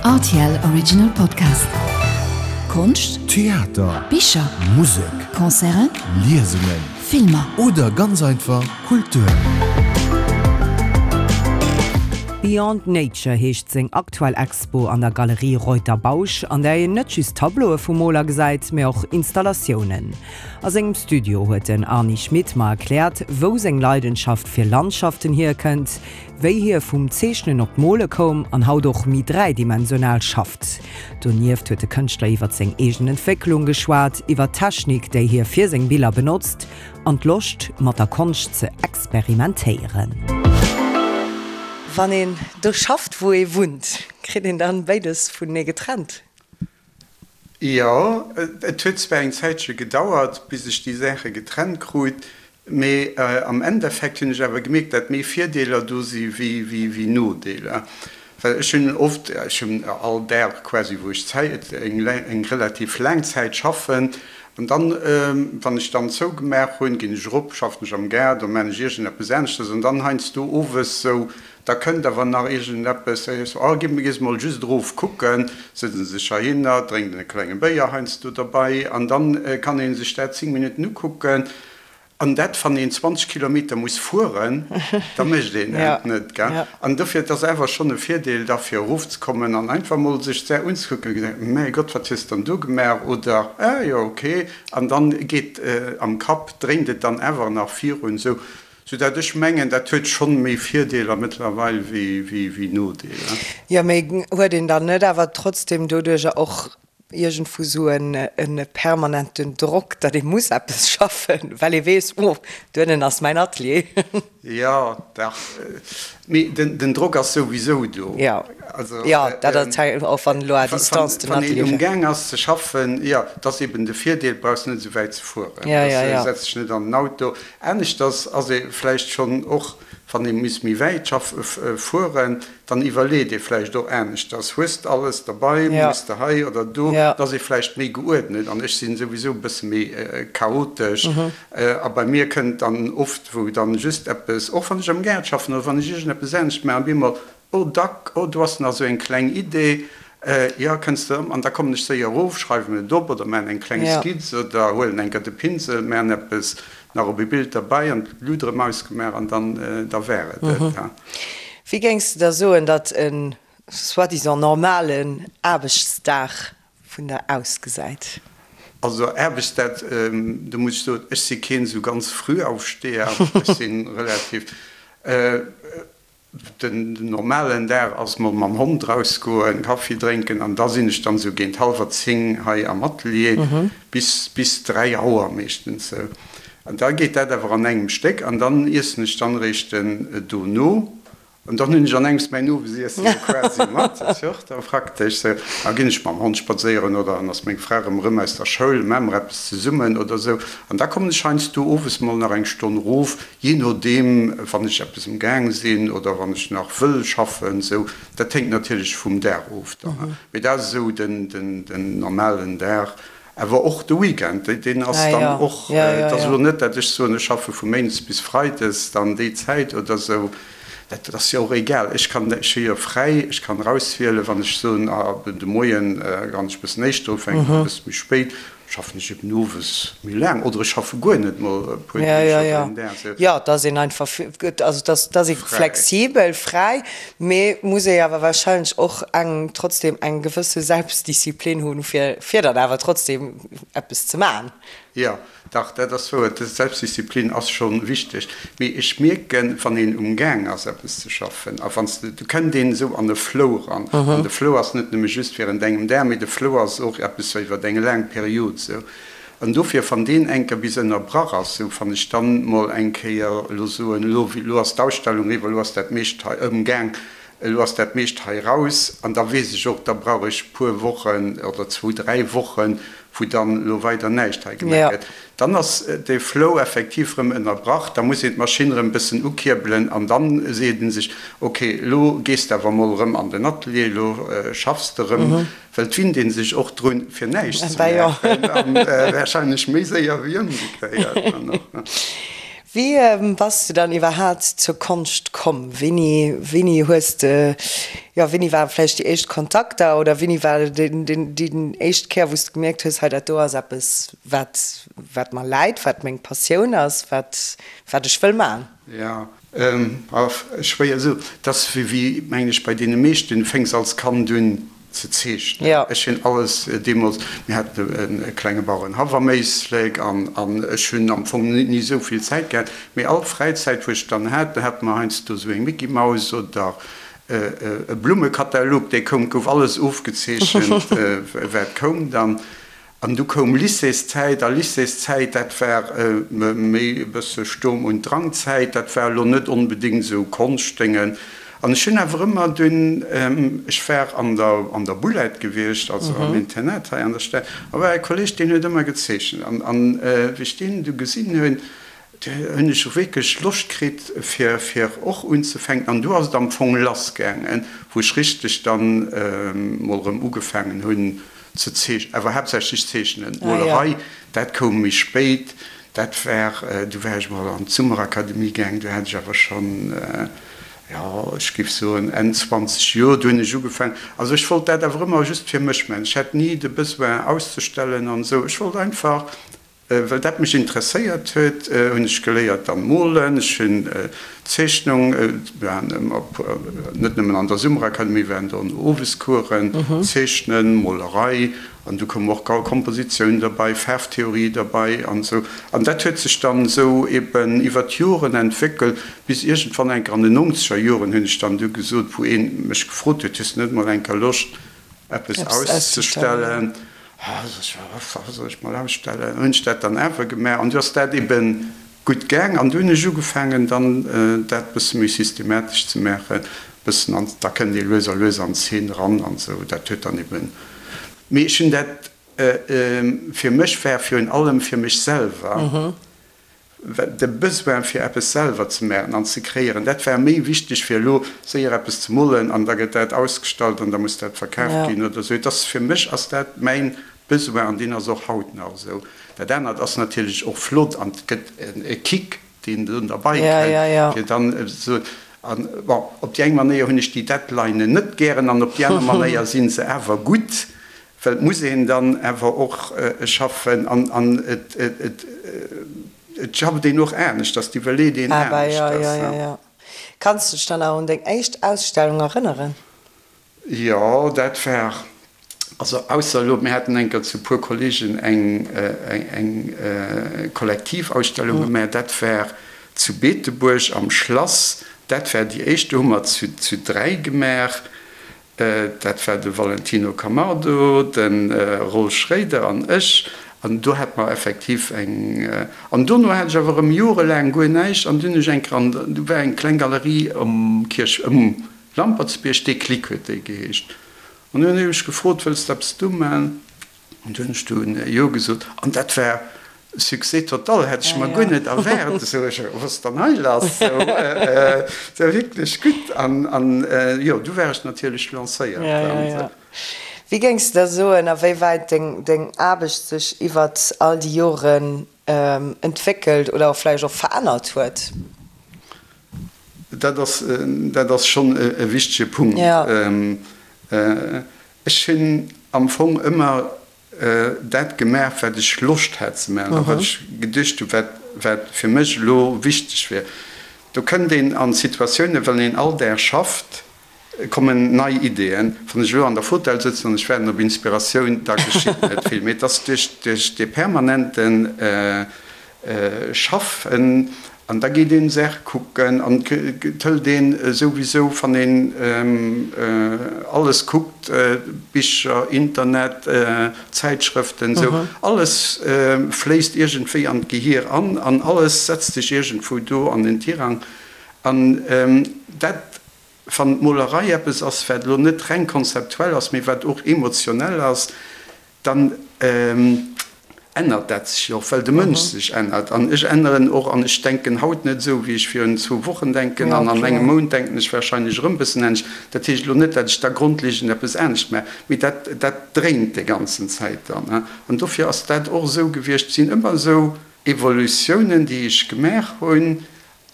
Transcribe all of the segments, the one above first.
Rtl Original Podcast. Konscht, Theater, Bicher, Musek, Concerten, Liesungen Filmer. oder ganz einfach Kultur. Beyond Nature heescht seng aktuell Expo an der Galerie Reuter Bausch, an där een net just Tableaue vum Moler gesäit, mee och Installatiounen. A sengem Studio huet den Arny Schmit mer erkläert, wou seng Leidenschaft fir Landschaften hierkënnt, wéi hie vum Zeechnen op d'Mole koum an haut och méi dräidimensional schafft. Donieft huet de Kënschtler iwwer seng eegen Entwécklung geschwat, iwwer d'Technik, déi hie fir seng Biller benotzt an d'Loscht, mat der Konscht ze experimentéieren. Wann een do schafft, wou ee wunnt, kritt een dann béides vunenee getrennt? Jo, et huet zwar eng Zäitche gedauert, bis ech déi Saache getrennt krut, mee am Endeffekt hunn ech awer gemierkt, dat méi Virdeeler do si wéi Nodeeler. Well ech hunn oft, ech hunn all Dag quasi, wou ech Zäit, eng relativ laang Zäit schaffen, an dann, wann ech dann zougemaach hunn, ginn ech erop, schaffen ech am Gaart oder maan ech iergendeppes aneschters, an dann heiansdo owes sou Da kënnt awer nach iergendeppes, da heescht et, oh, gi mir mol just erof kucken, sëtzt en sech heihinner, drénkt en e klenge Béier heiansdo derbei an dann kann ee sech dat 10 Minutten ukucken. An dat, wann een 20 Kilometer muss fueren, da mécht een dat net, gell. An dofir, et ass awer schonn e Virdeel da fir erofzekommen an einfach mol sech d'Saach unzekucken a gesäit, mäi Gott, wat hues de dann do gemaach oder ah jo, okay. An dann geet am Kapp, dréint et dann awer nach virun esou. Sou dat ech mengen, dat huet schonn méi Virdeeler mëttlerweil wéi Nodeeler. Jo, mee huet een dann net awer trotzdem doduercher och iergendwou sou e permanenten Drock, datt ee muss eppes schaffen, well ee weess, oh, duennen ass mäin Atelier? Jo, dach, mee den Drock ass souwisou do. Jo, jo, dat ass och wann elo à distance den Atelier. Wann een umgaang ass ze schaffen, jo, dat ass eben de Virdeel, brauchs net esou wäit ze fueren, setz dech net an den Auto. Aneschters ass ee vläicht schonn och, wann ee muss méi wäit fueren, dann iwwerleet ee vläicht och aneschters, hues de alles derbei, muss de hei oder do, da ass ee vläicht méi geuerdnet. An ech sinn souwisou e bësse méi chaotesch a bei mir kënnt dann oft, wou dann just eppes, och wann ech am Gaart schaffen oder wann ech iergendeppes anescht maachen, op eemol Oh dack, oh do ass nach esou eng kleng Idee, jo kënns de, an da kommen ech séier erof, schreiwen et op oder maan eng kleng Skizz oder huelen eng Kéier de Pinsel, maan eppes nach op e Bild derbei an d'Lut erëm ausgemaach an dann da war et et. Wéi géings de da soen, datt e soi-disant normalen Aarbechtsdag vun der ausgesäit? Also Aarbechtsdag, do muss ech soen, ech si keen esou ganz Frühaufsteher, ech si relativ. Den normalen Dag ass mol mam Hond rausgoen, Kaffi drénken an da sinn ech dann sou géint hallwer 10 hei am Atelier bis bis 3 Auer meeschtens sou. An da geet dat awer an engem Stéck an dann iessen ech dann eréischt dono an dann hunn ech an engems mäin Owesiessen jo quasi mat, dat ass jo och da praktesch sou. Da ginn ech mam Hond spadséieren oder dann ass meng Fra erëm erëm aus der Schoul, maache mer eppes zesummen oder sou an da kommen ech heiansdo owes mol nach eng Stonn erof. Jee nodeem, wann ech eppes um Gaang sinn oder wann ech nach wëll schaffen, sou. Dat héngt natierlech vum Dag of dann. Mee dat ass esou den normalen Dag. Awer och de Weekend, deen ass dann och, et ass elo net, dat ech soen, ech schaffe vu méindes bis freides dann déi Zäit oder sou. Dat ass jo och egal. Ech kann, ech hu jo fräi, ech kann erauswielen, wann ech soen, de Moien kann ech e bëssen éischter ufänken oder e bësse méi spéit. Schaffen ech eben owes méi laang oder ech schaffe guer net mol e puer Deeg oder een Dag esou. Jo, et ass een einfach, also et ass, et ass ee flexibel, fräi, mee muss ee awer wahrscheinlech och eng, trotzdem eng gewësse Selbstdisziplin hunn, fir, fir dann awer trotzdem eppes ze maachen. Jo, dach, dat ass wouer, d'Selbstdisziplin ass scho wichteg. Mee ech mierken, wann een um Gaang ass eppes ze schaffen a wann s de, do kënnt een esou an e Flow eran. An de Flow ass net nëmme just während engem Dag, mee de Flow ass och eppes sou iwwer eng laang Period sou. An dofir, wann deen eng Kéier bis ënnerbrach ass, sou wann ech dann mol eng Kéier elo soen, elo, elo ass d'Ausstellung eriwwer, elo ass dat meescht hei ëmgaang, elo ass dat meescht hei raus, an da weess ech och, da brauch ech puer Wochen oder zwou, dräi Wochen, wou dann elo weider näischt hei gemaach gëtt. Dann ass de Flow effektiv erëm ënnerbrach, da muss een d'Maschinn erëm e bëssen ukierbelen an dann seet ee sech, ok, elo gees de awer mol erëm an den Atelier, elo schaffs de erëm, well et winnt ee sech och drun, fir näischt ze maachen, a warscheinlech méi séier wéi ëmgekéiert dann och. Wéi bass de dann iwwerhaat zur Konscht komm? Wéini, wéini hues de, jo, wéini ware vläicht déi éischt Kontakter oder wéini war den, den, déi éischt Kéier, wou s de gemierkt hues, hei dat do ass eppes, wat, wat mer läit, wat meng Passioun ass, wat, wat ech wëll man? Jo, schwéier esou. Et ass wéi, mengen ech, bei deene meeschten, du fänks als Kand un ze zeechnen. Ech hunn alles deemools, mir haten e klenge Bauerenhaff am Éislek an ech hunn am Fong ni esou vill Zäit gehat, mee all Fräizäit wou ech dann hat, da hate mer heiansdo esou eng Micky Maus oder e Blummekatalog, dee koum, gouf alles ofgezeechent wat koum dann. An du koum Lycéeszäit, a Lycéeszäit, dat war méi e bësse Sturm und Drangzäit, dat war elo net onbedéngt esou Konschtdéngen. An ech hunn awer ëmmer dunn, ech war an der an der Boulette gewiescht, also am Internat hei an der Stad, a war e Kolleg, deen huet ëmmer gezeechent. An an wéi ech deen du gesinn hunn, du hunn ech wierklech Loscht kritt fir fir och unzefänken. An du ass et am Fong lassgaangen, wou ech richteg dann mol erëm ugefaangen hunn, Ze zeechnen, awer haaptsächlech zeechnen. D'Molerei, dat koum méi spéit. Dat war, du war ech mol an d'Summerakademie gaang, du hat ech awer schonn, jo, ech géif soen Enn 20 Joer, du hunn ech ugefaangen. Also ech wollt dat awer ëmmer just fir mech maachen. Ech hat ni de Besoin auszestellen an esou. Ech wollt einfach Well dat mech interesséiert huet, hunn ech geléiert dann molen. Ech hunn Zeechnung, mir waren ëmmer net nëmmen an der Summerakademie, mir waren do an Owescoursen, Zeechnen, Molerei an du koum och Kompositioun derbei, Faarftheorie derbei an esou. An dat huet sech dann esou eben iwwer d'Joren entwéckelt, bis iergendwann eng Kéier an den nonzeger Joren hunn ech dann du gesot, wou ee mech gefrot huet, Hues de net mol eng Kéier Loscht eppes auszestellen? Wat soll ech mol ausstellen? Hunn ech dat dann awer gemaach an du ass dat eben gutt gaang an du hunn ech ugefaangen dann dat bësse méi systematesch ze maachen, bëssen an da kënnt ee lues a lues an d'Zeen eran an esou. Dat huet dann eben, mee ech hunn dat fir mech war virun allem fir mech selwer. De Besoin fir eppes selwer ze maachen an ze kreéieren, dat war méi wichteg fir elo séier eppes ze molen an da gëtt dat ausgestallt an da muss dat verkaaft ginn oder esou. Et ass, fir mech ass dat mäin Besoin an deen ass och haut nach esou. Dat anert ass natierlech och flott an et gëtt e Kick, deen do derbei kënnt, fir dann esou. An bon, op déi eng Manéier hunn ech déi Deadlinen net gären an op déi aner Manéier si se awer gutt, Well et muss een dann awer och schaffen an et schafft een och aneschters, et iwwerleet een aneschters. Jo, jo, jo. Kanns de dech dann nach un deng éischt Ausstellung erënneren? Jo, dat war, also ausser elo, mir haten eng Kéier zu e puer Kollegen eng Kollektivausstellung gemaach, dat war zu Beetebuerg am Schlass, dat war déi éischt, do hu mer zu 3 gemaach. Dat war de Valentino Camardo, de Roll Schréider an ech. An do hate mer effektiv eng. An dono hat ech awer erëm jorelaang guer näischt. An dunn hunn ech eng Kéier an, do war eng kleng Galerie um Kierch, um Lampertsbierg, Déclic huet déi geheescht. An dunn hunn ech gefrot, Wëlls de eppes do man? An du hunn ech dunn Jo gesot. An dat war Succès total, hätt ech mer guer net erwaart. Esou, ech, wat ass dann hei lass? Esou, dat war wierklech gutt. An, an jo, du war ech natierlech lancéiert. Ja, ja, ja. Wéi géings de da soen, a wéi wäit deng, deng Aarbecht sech iwwert all déi Joren entwéckelt oder och vläicht och verännert huet? Dat ass, dat ass schonn e wichtege Punkt. Ech hunn am Fong ëmmer dat gemaach, wat ech Loscht hat ze maachen a wat ech geduecht hunn, wat, wat fir mech elo wichteg wier. Do kënnt een an Situatiounen, wann een all Dag schafft, kommen nei Ideeën. Wann ech elo an der Fotell sëtzen an ech waarden op Inspiratioun, da geschitt net vill. Mee et ass duerch, duerch dee permanenten Schaffen an da geet een Saache kucken an et hëlt een souwisou wann een alles kuckt, Bicher, Internet, Zäitschrëften esou, alles fléisst iergendwéi an d'Gehier an an alles setzt sech iergendwou do an den Tirang an dat wann d'Molerei eppes ass wat elo net reng konzeptuell ass, mee wat och emotionell ass, dann ännert dat sech jo och, well de Mënsch sech ännert. An ech änneren och an ech denken haut net esou, wéi ech virun zwou Wochen denken an an engem Mount denken ech warscheinlech erëm e bëssen anescht. Dat heescht elo net, datt ech da grondlegend eppes anescht maachen, mee dat, dat dréint déi ganzen Zäit dann. An dofir ass dat och esou gewiescht, sinn ëmmer esou. Evolutiounen, déi ech gemaach hunn.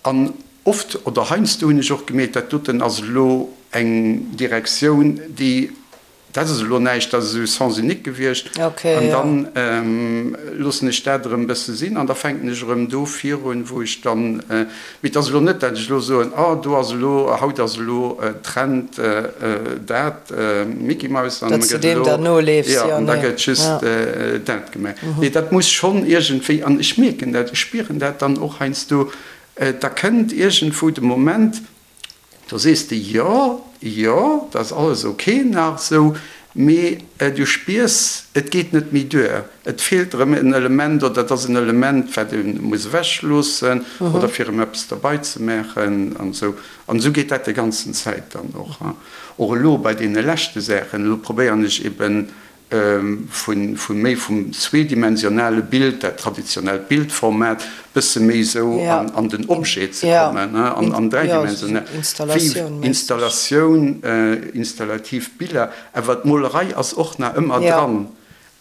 An oft oder heiansdo hunn ech och gemierkt, dat doten ass elo eng Direktioun, déi, dat ass elo näischt, dat ass esou Sens unique gewiescht. An dann loossen ech dat erëm e bësse sinn an da fänken ech erëm do virun, wou ech dann, mee et ass elo net, dat ech elo soen, oh do ass elo, haut ass elo Trend dat, Mickey Mouse, an da gëtt elo, jo, an da gëtt just dat gemaach. Nee, dat muss schonn iergendwéi, an ech mierken dat, ech spieren dat dann och heiansdo, da kënnt iergendwou de Moment, do sees de, jo, jo, dat ass alles ok nach esou, mee du spiers, et geet net méi duer, et feelt erëm en Element oder et ass en Element, wat ee muss ewechloossen oder fir erëm eppes derbei ze maachen an esou. An esou geet dat déi ganzen Zäit dann och. Och elo bei deene leschte Saachen, elo probéieren ech eben vu méi vum zweedimensionale Bild, dat traditionellt Bildformat, bësse méi esou an den Objet ze kommen, an dräidimensional, wéi Installatioun, installativ Biller. Awer d'Molerei ass och nach ëmmer dran.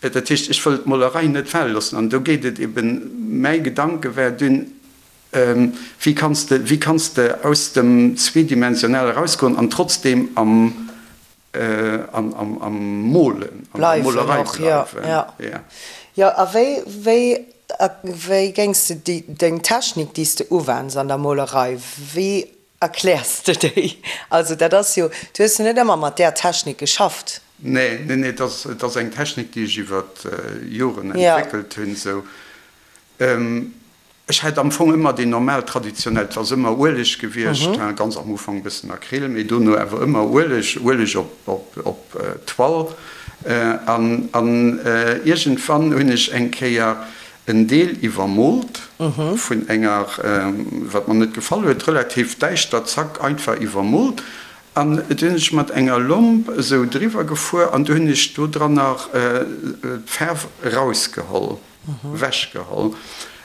Dat heescht, ech wëll d'Molerei net fale loossen. An do geet et eben, mäi Gedanke war dunn, Wéi kanns de, wéi kanns de aus dem Zweedimensionale erausgoen an trotzdem am, am, am Molen, an der Molerei bleiwen? Jo, jo. Jo, a wéi, wéi, wéi géings de déi, deng Technik, déi s de uwenns an der Molerei, wéi erkläers de déi? Also dat ass jo, du hues jo net ëmmer mat där Technik geschafft. Nee, nee, nee, et ass, et ass eng Technik, déi ech iwwer Joren entwéckelt hunn, esou. Ech hat am Fong ëmmer déi normal traditionell, et ass ëmmer Ueleg gewiescht, ganz am Ufank e bëssen Acryl, mee dono awer ëmmer Ueleg, Ueleg op Toile. An iergendwann hunn ech eng Kéier en Deel iwwermoolt vun enger, wat mer net gefall huet, relativ däischter, zack, einfach iwwermoolt. An du hunn ech mat enger Lomp esou driwwer gefuer an du hunn ech do dranner d'Faarf erausgeholl. Wechgeholl.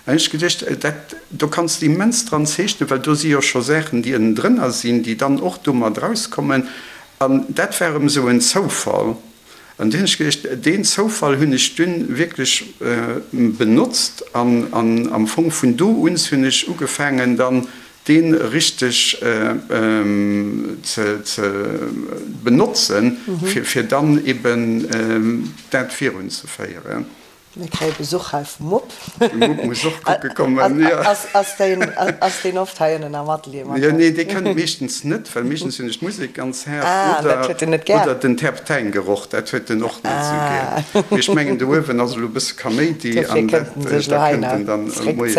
An ech geduecht, dat do kanns de immens dran zeechnen, well do si jo scho Saachen, déi ënnendrënner sinn, déi dann och do mat erauskommen. An dat war erëm esou en Zoufall. An du hunn ech geduecht, deen Zoufall hunn ech dunn wierklech benotzt an am Fong vun do un hunn ech ugefaangen dann dee richteg ze benotzen, fir dann eben dat virunzeféieren. Mir kréie Besuch hei vum Mupp. De Mupp muss och kucke kommen, jo. Ass deen oft hei ënnen am Atelier mat? Jo, nee, dee kënnt meeschtens net, well meeschtens hunn ech d'Musek ganz haart oder den Terpteingeroch, dat huet en och net esou gär. Mee ech mengen, do uewen ass elo e bësse Kaméidi an dat, da kënnt en dann moies.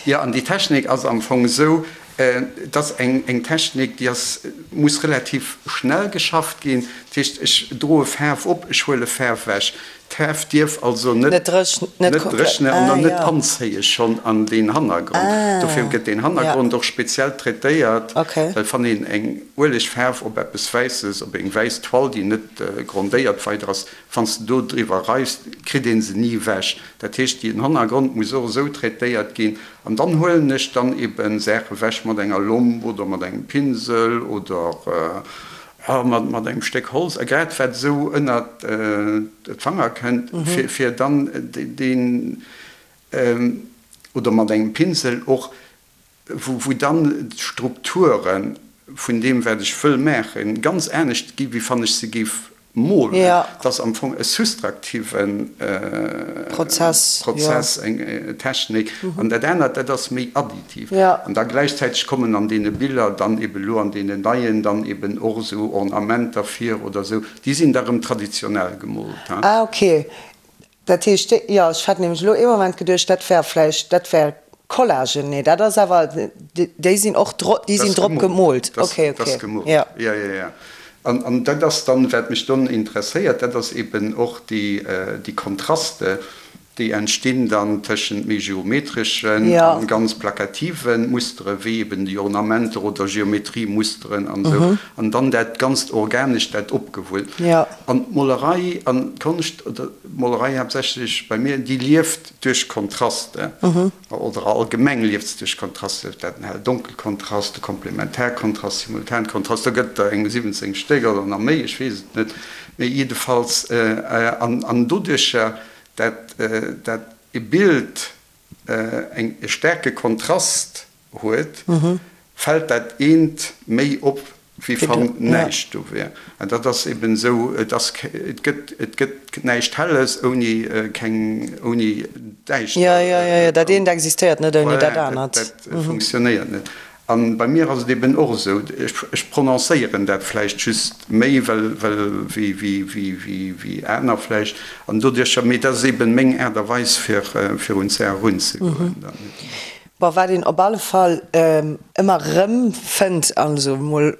Jo, an déi Technik ass am Fong esou, Et ass eng Technik, déi ass, muss relativ schnell geschafft ginn. Dat heescht, ech droe Faarf op, ech huele Faarf ewech. D'Faarf dierf also net dréchnen an dann net anzéie schonn an deen Hannergrond. Dofir gëtt deen Hannergrond och speziell traitéiert, well wann een eng Uelegfaarf op eppes Wäisses, op eng wäiss Toile, déi net grondéiert weider ass, wann s de do driwwer reifs, kritt ee se ni ewech. Dat heescht, deen Hannergrond muss och esou traitéiert ginn, An dann huelen ech dann eben Saache wech mat enger Lomp oder mat engem Pinsel oder mat engem Stéck Holz, a grad wat esou ënnert d'Fanger kënnt, fir dann deen, oder mat engem Pinsel och, wou dann d'Strukture vun deem wat ech wëll maachen ganz anescht gi wéi wann ech se géif Molen, dat ass am Fong e sustraktive Prozess, eng Technik, an dat anert, dat ass méi additiv. An da gläichzäiteg kommen an deene Biller dann eben elo an deenen neien dann eben och esou Ornamenter vir oder esou, déi sinn da rëm traditionell gemoolt. Ah ok, Dat heescht, jo, ech hat nämlech elo ee Moment geduecht, dat wär vläicht, dat wär Collagen. Nee, dat ass awer, déi sinn och dro, déi sinn drop gemoolt. Ok, ok. Dat ass gemoolt, jo, jo, jo. An, an dat ass dann, wat mech dann interesséiert, dat ass eben och déi, déi Kontraste, déi entstinn dann tëschent méi geometreschen a ganz plakative Mustere wéi eben déi Ornamenter oder Geometriemusteren an esou, an dann dat ganzt Organescht, dat opgewullt. An d'Molerei an d'Konscht, oder d'Molerei haaptsächlech bei mir, déi lieft duerch Kontraste, oder allgemeng lieft se duerch Kontraste, dat den Hell-Donkel-Kontrast, de Komplementärkontrast, Simultankontrast, do gëtt der eng 17 Stéck oder nach méi, ech weess et net, mee jiddefalls, an doduercher dat, dat. e Bild eng e staarke Kontrast huet, fält dat eent méi op, wéi wann näischt do wär. An dat ass eben esou, et ass, et gëtt, et gëtt näischt Helles ouni keng, ouni Däischter. Jo, jo, jo, jo, dat eent existéiert net ouni dat anert. Dat funktionéiert net. A bei mir ass et eben och esou, ech prononcéieren dat vläicht just méi, well, well, wéi, wéi, wéi, wéi, wéi aner vläicht, an doduercher, mee dat ass eben meng Aart a Weis, fir, fir un d'Saach erunzegoen dann. Bon, wat een op alle Fall ëmmer erëm fënnt, also emol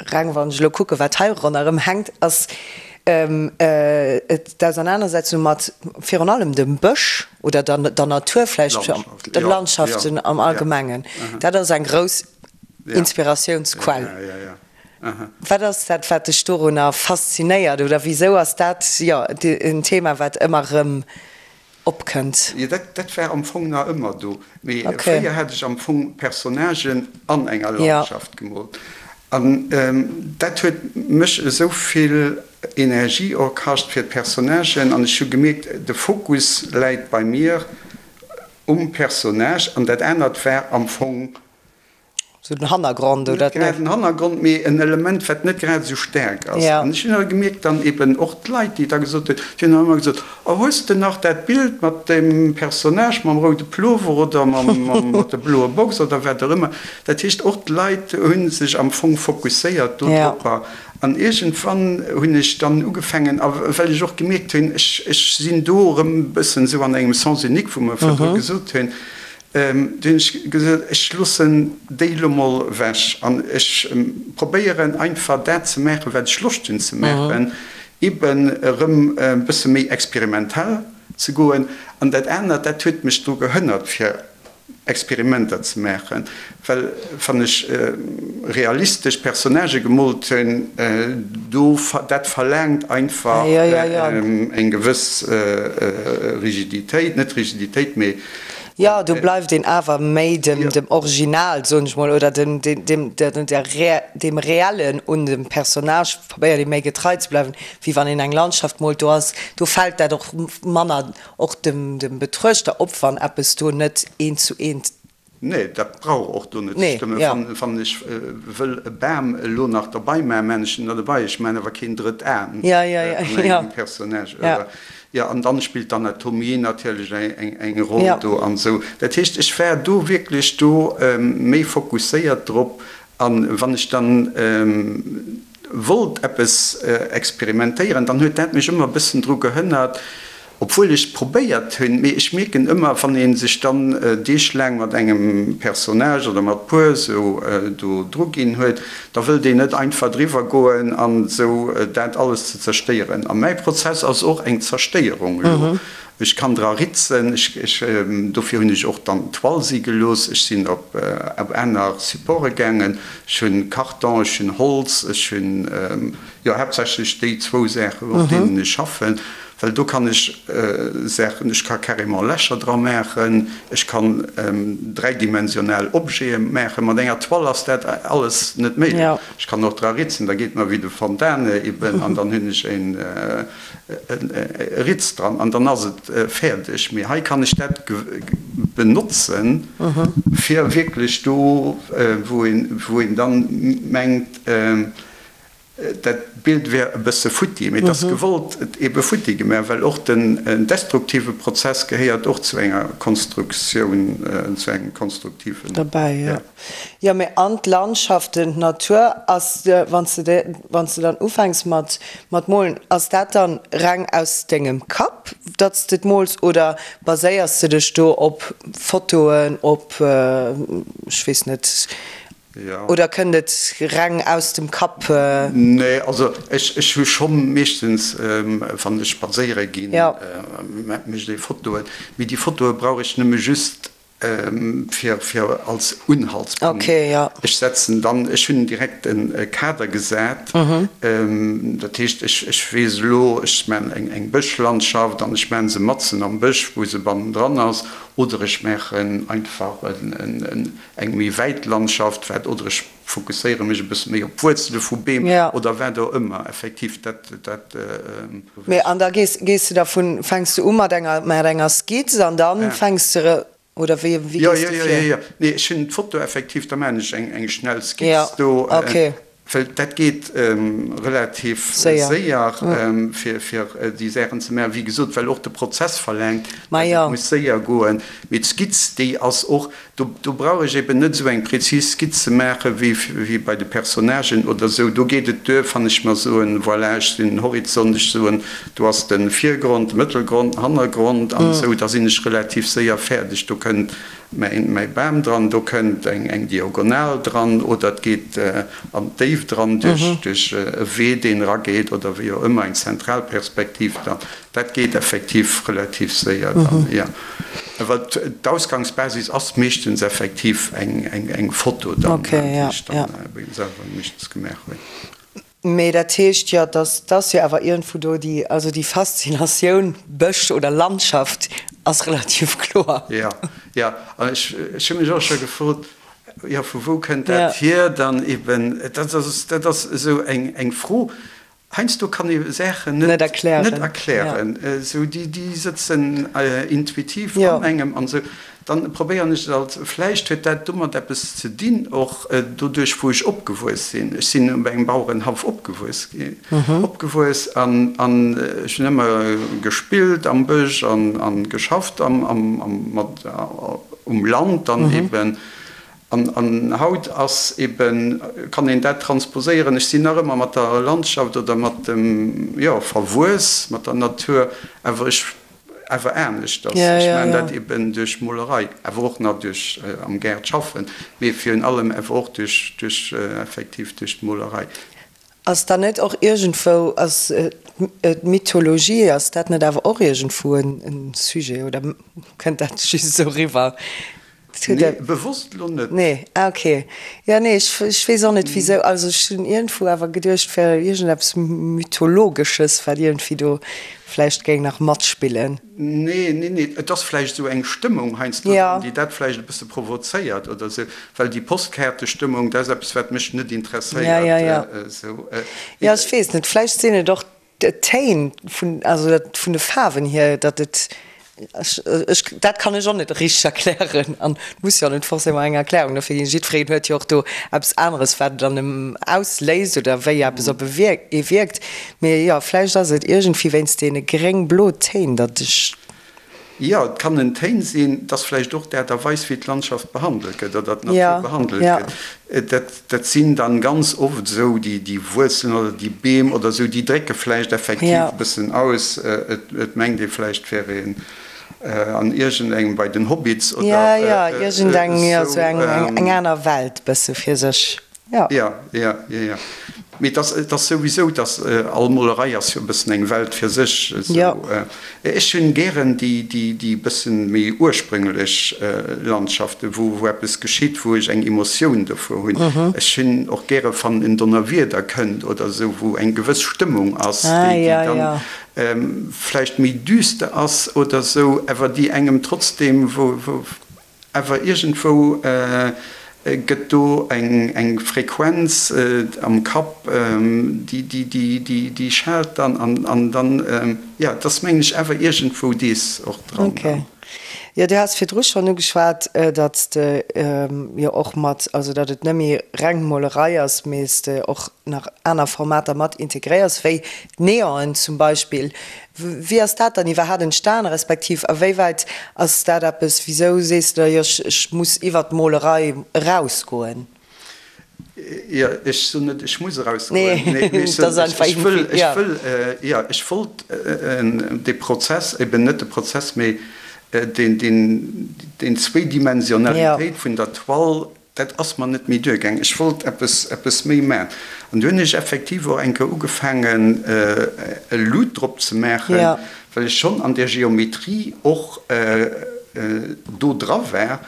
reng wann ech elo kucken, wat hei ronderëm hänkt, ass d'Ausernanersetzung mat virun allem dem Bësch oder der Natur vläicht, de Landschaften am Allgemengen. Dat ass eng grouss Inspiratiounsquell. Wat ass dat, wat dech dorunner faszinéiert oder wisou ass dat, jo, en Thema, wat ëmmer erëm opkënnt. Jo, dat war am Fong nach ëmmer do, mee fréier hat ech am Fong Personnagen an enger Landschaft gemoolt an dat huet mech esou vill Energie och kascht fir d'Personnagen an ech hu gemierkt, de Fokus läit bei mir um Personnage an dat anert war am Fong Sou den Hannergrond, oder? Net grad en Hannergrond, mee en Element, wat net grad esou staark ass. An ech hunn awer gemierkt, dann eben och d'Leit, déi da gesot hunn, déi hunn dann ëmmer gesot, Oh, hues de nach dat Bild mat deem Personnage mam roude Plover oder mat der bloer Box oder wat och ëmmer. Dat heescht, och d'Leit hu sech am Fong fokusséiert dodropper. An iergendwann hunn ech dann ugefaangen, a well ech och gemierkt hunn, ech sinn do erëm e bëssen esou an engem Sens unique, wou mer virdru gesot hunn, Du hunn ech gesot, ech loossen déi elo mol ewech an ech probéieren einfach dat ze maachen, wat ech Loscht hunn ze maachen, eben erëm e bësse méi experimentell ze goen. An dat anert, dat huet mech dru gehënnert, fir Experimenter ze maachen, well wann ech realistesch Personnagë gemoolt hunn, do, dat verlaangt einfach eng gewëss Rigiditéit, net Rigiditéit, mee Jo, do bleift een awer méi dem Original, soen ech mol, oder dem Reellen un dem Personnage probéiert ee méi getrei ze bleiwen, wéi wann een eng Landschaft moolt. Do ass, do fält dat och manner och dem Betruechter op, wann eppes do net eent zu eent. Nee, dat brauch och do net ze stëmmen. Wann ech wëll e Bam elo nach derbei maachen, maachen ech en der derbei. Ech maachen awer keen drëtt Aen an engem Personnage. Jo, an dann spillt d'Anatomie natierlech eng Roll do an esou. Dat heescht, ech war do wierklech do méi fokusséiert drop. An wann ech dann wollt eppes experimentéieren, dann huet dat mech ëmmer e bëssen dru gehënnert, obwuel ech probéiert hunn. Mee ech mierken ëmmer, wann ee sech dann deeglaang mat engem Personnage oder mat puer esou do dru ginn huet, da wëllt een net einfach driwwer goen an esou dat alles ze zerstéieren. A mäi Prozess ass och eng Zerstéierung elo. Ech kann dra ritzen, ech, ech, dofir hunn ech och dann d'Toile si gelooss, ech sinn op aner Supporte gaangen, ech hunn Karton, ech hunn Holz, ech hunn, jo haaptsächlech déi zwou Saachen, op deenen ech schaffen, well do kann ech Saachen, ech ka carrément Lächer dra maachen, ech kann dräidimensional Objete maachen. Mat enger Toile ass dat alles net méiglech. Ech kann och dra ritzen, da geet mer wéi de Fontane eben an dann hunn ech een, e Ritz dran an dann ass et fäerdeg. Mee hei kann ech dat benotzen, fir wierklech do, wou een dann mengt, dat Bild wär e bësse futti, mee et ass gewollt ebe futti gemaach, well och den destruktive Prozess gehéiert och zu enger Konstruktioun, zu engem konstruktiven. Derbäi, jo. Jo, mee an d'Landschaften, d'Natur ass, wann s de, wann s de dann ufänks mat, mat molen, ass dat dann reng aus dengem Kapp, datt s de et mools oder baséiers de dech do op Fotoen, op, ech weess net, oder kënnt et reng aus dem Kapp? Nee, also ech, ech hu schonn meeschtens, wann ech spadséiere ginn, mécht ee Fotoen, mee déi Fotoe brauch ech nëmme just. Fir, fir als Unhaltspunkt. Okay, ja. Ech setzen dann, ech hunn direkt e Kader gesat. Dat heescht, ech, ech weess elo, ech maachen eng, eng Bëschlandschaft an ech maachen se matzen am Bësch, wou se bannendran ass, oder ech maachen einfach en, en, eng méi wäit Landschaft, wat, oder ech fokusséiere mech e bësse méi op d'Wuerzele vu Beem oder wat och ëmmer. Effektiv, dat, dat. Mee an da gees, gees de dervun, fänks de u mat enger, mat enger Skizz an dann fänks de, oder wéi, wéi gees de vir? Jo, jo, jo, jo. Nee, ech hunn d'Foto effektiv, da maachen ech eng, eng schnell Skizz do. Well dat geet relativ séier, fir, fir déi Saachen ze maachen. Wéi gesot, well och de Prozess verlaangt, datt et muss séier goen. Mee d'Skizz, déi ass och, Do, do brauch ech eben net esou eng präzis Skizz ze maache wéi, wéi bei de Personnagen oder esou. Do geet et duer, wann ech mer soen, voilà, ech sinn den Horizont, ech soen, do ass de Virgrond, de Mëttelgrond, den Hannergrond an esou, da sinn ech relativ séier fäerdeg. Do kënnt mäin, mäi Bam dran, do kënnt eng, eng Diagonal dran oder et geet an d'Déift dran duerch, duerch e Wee, deen erageet oder wéi och ëmmer, eng Zentralperspektiv dann. Dat geet effektiv relativ séier dann, jo. Awer d'Ausgangsbasis ass meeschtens effektiv eng Foto dann, déi ech dann selwer meeschtens gemaach hunn. Mee dat heescht jo, dass dass jo awer iergendwou do déi, also déi Faszinatioun Bësch oder Landschaft ass relativ kloer. Jo, jo. An ech hu mech och scho gefrot, jo vu wou kënnt dat hier dann eben? Dat ass, dat ass esou eng Fro, Heiansdo kann ee Saachen net erklären, esou déi sëtzen intuitiv an engem an esou. Dann probéieren ech et alt. Vläicht huet dat domat eppes ze dinn, och doduerch wou ech opgewuess sinn. Ech sinn op engem Bauerenhaff opgewuess opgewuess an ech hunn ëmmer gespillt am Bësch an geschafft am mat um Land dann eben. An haut ass eben, kann een dat transposéieren, ech sinn nach ëmmer mat der Landschaft oder mat dem, jo, verwuess mat der Natur, awer ech, awer aneschters. Ech maachen dat eben duerch Molerei, awer och nach duerch am Gaart schaffen, mee virun allem awer och duerch, duerch effektiv duerch d'Molerei. Ass dann net och iergendwou, ass d'Mythologie, ass dat net awer och iergendwou e Sujet oder kënnt dat just esou eriwwer? Nee, bewosst lo net. Nee, ah ok. Jo, nee, ech, ech weess och net wisou. Also ech hunn iergendwou awer geduecht, et wär iergendeppes Mythologesches, wat iergendwéi do vläicht géing nach matspillen. Nee, nee, nee, et ass vläicht esou eng Stëmmung heiansdo dran, déi dat vläicht e bësse provozéiert oder esou, well déi Postkaartestëmmung, dat ass eppes, wat mech net interesséiert. Ja, ja, ja. Esou. Jo, ech weess net, vläicht sinn et och D'Téin vun, also dat vun de Faarwen hier, datt et, ech, ech, dat kann ech och net richteg erklären an et muss jo och net forcément eng Erklärung dofir ginn. Jiddwereen huet jo och do eppes aneres, wat et an em ausléist oder wéi eppes op e wierkt, ee wierkt. Mee jo, vläicht ass et iergendwéi wéinst deene gréng-blo Téin, datt ech. Jo, et kann en Téin sinn, et ass vläicht och d'Aart a Weis, wéi d'Landschaft behandelt gëtt oder d'Natur behandelt gëtt. Dat, dat sinn dann ganz oft esou déi, déi Wuerzelen oder déi Beem oder esou, déi drécke vläicht effektiv e bëssen aus. Et, et mengt ee vläicht, et wär een an iergendengem, bei den Hobbits oder esou. Jo, jo, iergendeng, jo, esou eng, eng aner Welt bësse fir sech. Ja. Ja, ja, ja, ja. Mee et ass, et ass souwisou, dass all Molerei ass jo e bëssen eng Welt fir sech. Esou. Ja. Ech hunn gären déi, déi, déi bëssen méi ursprüngelech Landschaften, wou, wou eppes geschitt, wou ech eng Emotioun dovur hunn. Ech hunn och gäre wann en Donnerwieder kënnt oder esou, wou eng gewëss Stëmmung ass, Ah, déi, déi ja, dann ja. vläicht méi düster ass oder esou, awer déi engem trotzdem, wou, wou, Awer iergendwou gëtt do eng Frequenz am Kapp, déi schaalt dann an dann, jo, et ass mengen ech awer iergendwou dees och dran. Ok. Jo, du has virdru schonn ugeschwat, datt s de jo och mat, also datt et net méi reng Molerei ass, mee s de och nach aner Formater mat integréiers, wéi d'Neonen zum Beispill. Wéi ass dat dann iwwerhaat entstan, respektiv a wéiwäit ass dat eppes, wisou sees de da, jo ech muss iwwert d'Molerei erausgoen? Jo, ech soen net, ech muss erausgoen, mee ech soen, ech wëll, ech wëll, jo, ech wollt dee Prozess, eben net de Prozess, mee deen, deen, deen Zwéidimensionalitéit vun der Toile Dat ass mer net méi duergaang. Ech wollt eppes, eppes méi maachen. An du hunn ech effektiv och eng Kéier ugefaangen, e Lut drop ze maachen, well ech schonn an där Geometrie och. do dra war.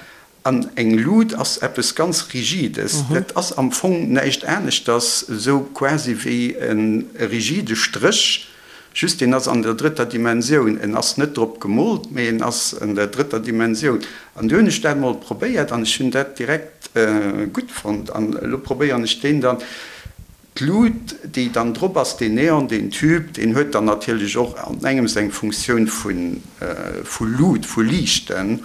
An eng Lut ass eppes ganz Rigides. Dat ass am Fong näischt aneschters, esou quasi wéi e rigide Stréch, just deen ass an der drëtter Dimensioun. En ass net drop gemoolt, mee en ass an der drëtter Dimensioun. An du hunn ech dat mol probéiert an ech hunn dat direkt gutt fonnt. An elo probéieren ech deen dann. D'Lut, déi dann drop ass, deen Neon, deen Tube, deen huet dann natierlech och an engems eng Funktioun vu Lut, vu Liichten,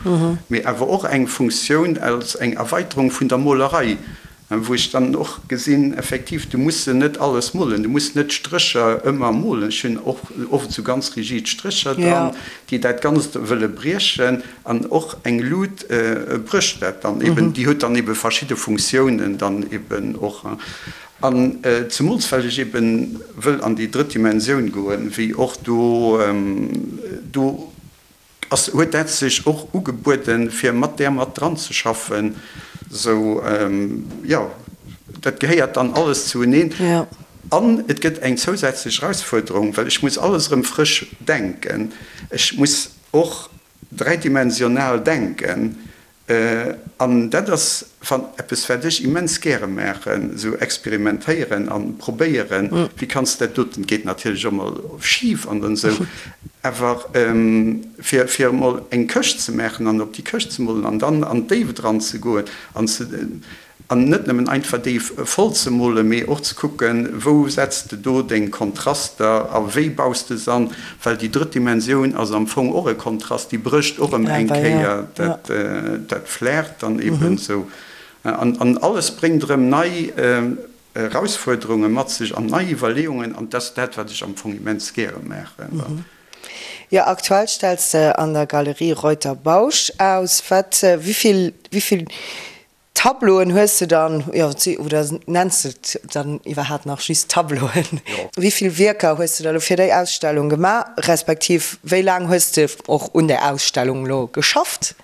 mee awer och eng Funktioun als eng Erweiterung vun der Molerei, wou ech dann och gesinn, effektiv, du muss se net alles molen, du muss net d'Strécher ëmmer molen. Ech hunn och oft esou ganz rigid Strécher dran, déi dat Ganzt wëlle briechen, an och eng Lut brécht dat dann eben, déi huet dann ebe verschidde Funktiounen dann eben och. An zemools well ech eben wëll an déi drëtt Dimensioun goen, wéi och do, do ass, huet dat sech och ugebueden, fir mat där mat dran ze schaffen. Sou, jo, dat gehéiert dann alles zueneen. An et gëtt eng zousätzlech Erausfuerderung, well ech muss alles erëm frësch denken. Ech muss och dräidimensional denken. An dat ass eppes, wat ech immens gäre maachen, esou experimentéieren a probéieren, wéi kanns de dat doten, geet natierlech och mol schif an dann esou, awer fir fir emol eng Këscht ze maachen an op déi Këscht ze molen an dann an d'Déift eranzegoen an ze. An net nëmmen einfach déi voll ze molen, mee och ze kucken, wou setz de do deng Kontraster a wéi baus de se an, well déi drëtt Dimensioun ass am Fong och e Kontrast, déi brécht och erëm eng Kéier dat Flair dann eben esou. An alles bréngt erëm nei Erausfuerderunge mat sech an nei Iwwerleeungen an dat ass dat, wat ech am Fong immens gäre maachen. Jo, aktuell stells de an der Galerie Reuter Bausch aus. Wat, wéi vill, wéi vill Tableauen hues de dann, jo, oder nenns de et dann iwwerhaapt nach just Tableauen? Wéi vill Wierker hues de da lo fir déi Ausstellung gemaach, respektiv wéi laang hues de och un där Ausstellung lo geschafft?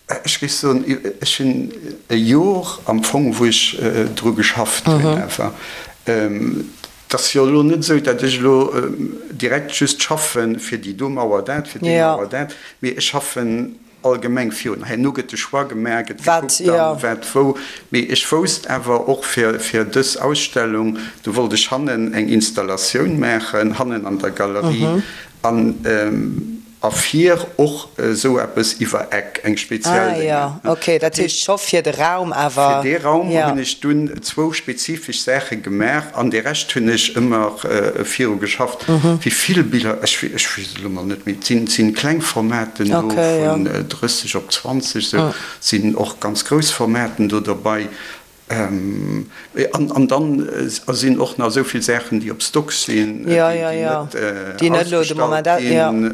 Ech géif soen, ech hunn e Jor am Fong, wou ech dru geschafft hunn awer. Et ass jo elo net esou, datt ech elo direkt just schaffen, fir déi do Mauer dat, fir déi Mauer dat, mee ech schaffen Allgemeng virun. Herno gëtt de Choix gemaach, gëtt gekuckt dann, wat wou. Mee ech wousst awer och fir fir dës Ausstellung, do wollt ech hannen eng Installatioun maachen, hannen an der Galerie an a vir och esou eppes iwwer Eck, eng speziell Ah jo, ok, dat heescht scho fir de Raum awer. Fir dee Raum hunn ech dunn zwou spezifesch Saache gemaach an de Rescht hunn ech ëmmer viru geschafft. Wéi vill Biller, ech weess et elo mol net méi, et sinn kleng Formaten do vun 30 op 20, sou sinn och ganz grouss Formaten do derbei. An dann sinn och nach esou vill Saachen, déi op Stock sinn, déi net ausgestallt ginn.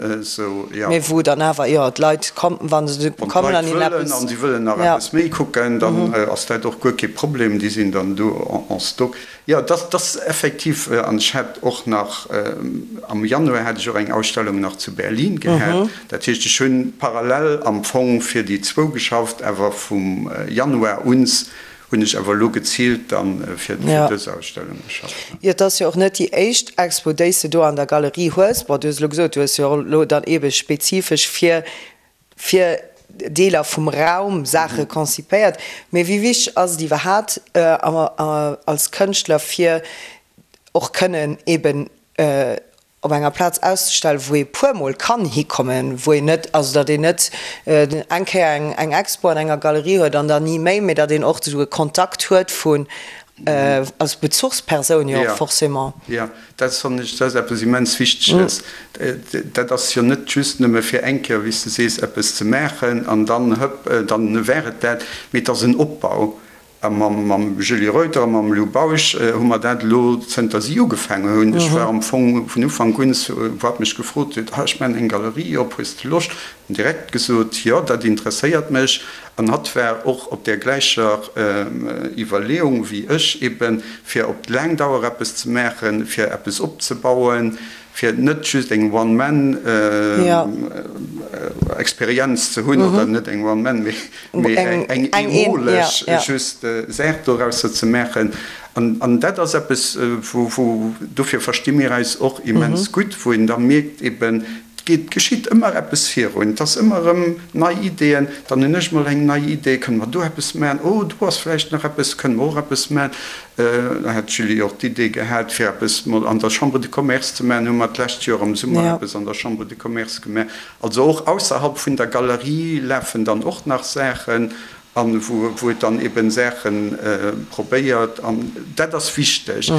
Mee wou dann awer, jo, d'Leit kommen, wa se kommen an hinnen eppes. Wann d'Leit wëllen an si wëllen nach eppes méi kucken, dann ass dat och guer kee Problem, déi sinn dann do en stock. Jo, dat ass effektiv, an ech hat och nach, am Januar hat ech och eng Ausstellung nach zu Berlin gehat. Dat heescht, ech hunn parallel am Fong fir déi zwou geschafft, awer vum Januar uns hunn ech awer elo geziilt dann fir dës Ausstellung geschafft. Jo, et ass jo och net déi éischt Expo, déi s de do an der Galerie hues. Bon, du hues elo gesot, du hues jo elo dann eebe spezifesch fir fir Deeler vum Raum Saache konzipéiert. Mee wéi wichteg ass et iwwerhaapt als Kënschtler fir och kënnen eben op enger Plaz auszestellen, wou ee puermol kann hikommen, wou een net, also datt een net eng Kéier eng Expo an enger Galerie huet an dann ni méi, mee datt een och esou e Kontakt huet vun als Bezuchspersoun jo och forcément. Jo, dat fannen ech, dat ass eppes immens Wichteges. Dat ass jo net just nëmme fir eng Kéier, wéi s de sees, eppes ze maachen an dann, hëpp, dann war et dat, mee et ass en Opbau. A mam Julie Reuter a mam Lou Bausch hu mer dat elo, zënter si ugefaangen hunn, ech war am Fong vun Ufank un, wou hatt mech gefrot huet, ah, ech maachen eng Galerie op, hues de Loscht? Hunn direkt gesot, jo, dat interesséiert mech. An hatt war och op där gläicher Iwwerleeung wéi ech, eben fir op laang Dauer eppes ze maachen, fir eppes opzebauen, fir net just eng One-Man-Experienz ze hunn, oder net eng One-Man, mee eng eemoleg just Saach dorausser ze maachen. An dat ass eppes, wou, dofir versti mir eis och immens gutt, wou een da mierkt eben. geet, geschitt ëmmer eppes virun. Et ass ëmmer erëm nei Ideeën. Dann hunn ech mol eng nei Idee, kënne mer do eppes maachen? Oh, do ass vläicht nach eppes, kënne mer och eppes maachen? Da hat d'Julie och d'Idee gehat, fir eppes mol an der Chambre de Commerce ze maachen. Hu mer d'lescht Joer am Summer eppes an der Chambre de Commerce gemaach. Also och ausserhalb vun der Galerie lafen dann och nach Saachen an wou et dann eben Saache probéiert. An dat ass wichteg.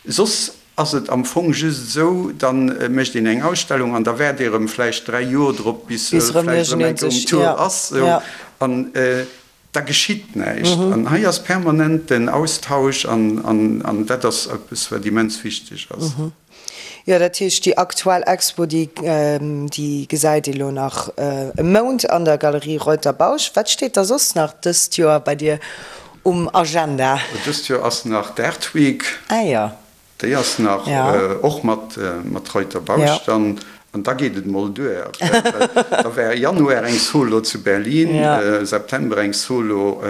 Soss ass et am Fong just esou, da mécht een eng Ausstellung an da waart ee erëm vläicht 3 Joer drop, bis vläicht erëm eng Kéier um Tour ass. An da geschitt näischt. An hei ass permanent den Austausch an dat ass eppes, wat immens wichteg ass. Jo, dat heescht, déi aktuell Expo, déi déi gesäit ee lo nach e Mount an der Galerie Reuter-Bausch. Wat steet da soss nach dëst Joer bei dir um Agenda? Dëst Joer ass nach d'Art Week. Ah jo. Déi ass nach och mat mat Reuter-Bausch dann. An da geet et mol duer. Da war Januar eng Solo zu Berlin, September eng Solo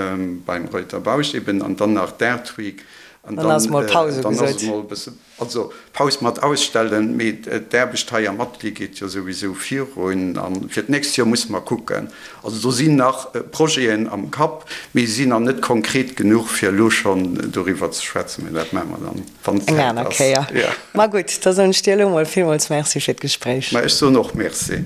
beim Reuter-Bausch eben an dann nach d'Art Week. An dann ass mol Paus ugesot. Also Paus mat ausstellen, mee d'Aarbecht hei am Atelier geet jo souwisou virun a fir d'nächst Joer musse mer kucken. Also do sinn nach Projeten am Kapp, mee se sinn nach net konkret genuch fir elo schonn doriwwer ze schwätzen, mee dat maache mer dann, wann Eng d'Zäit aner ass. Kéier. Jo. Ma gutt, da soen ech dir elo mol villmools Merci fir d'Gespréich. Ma ech soen och Merci.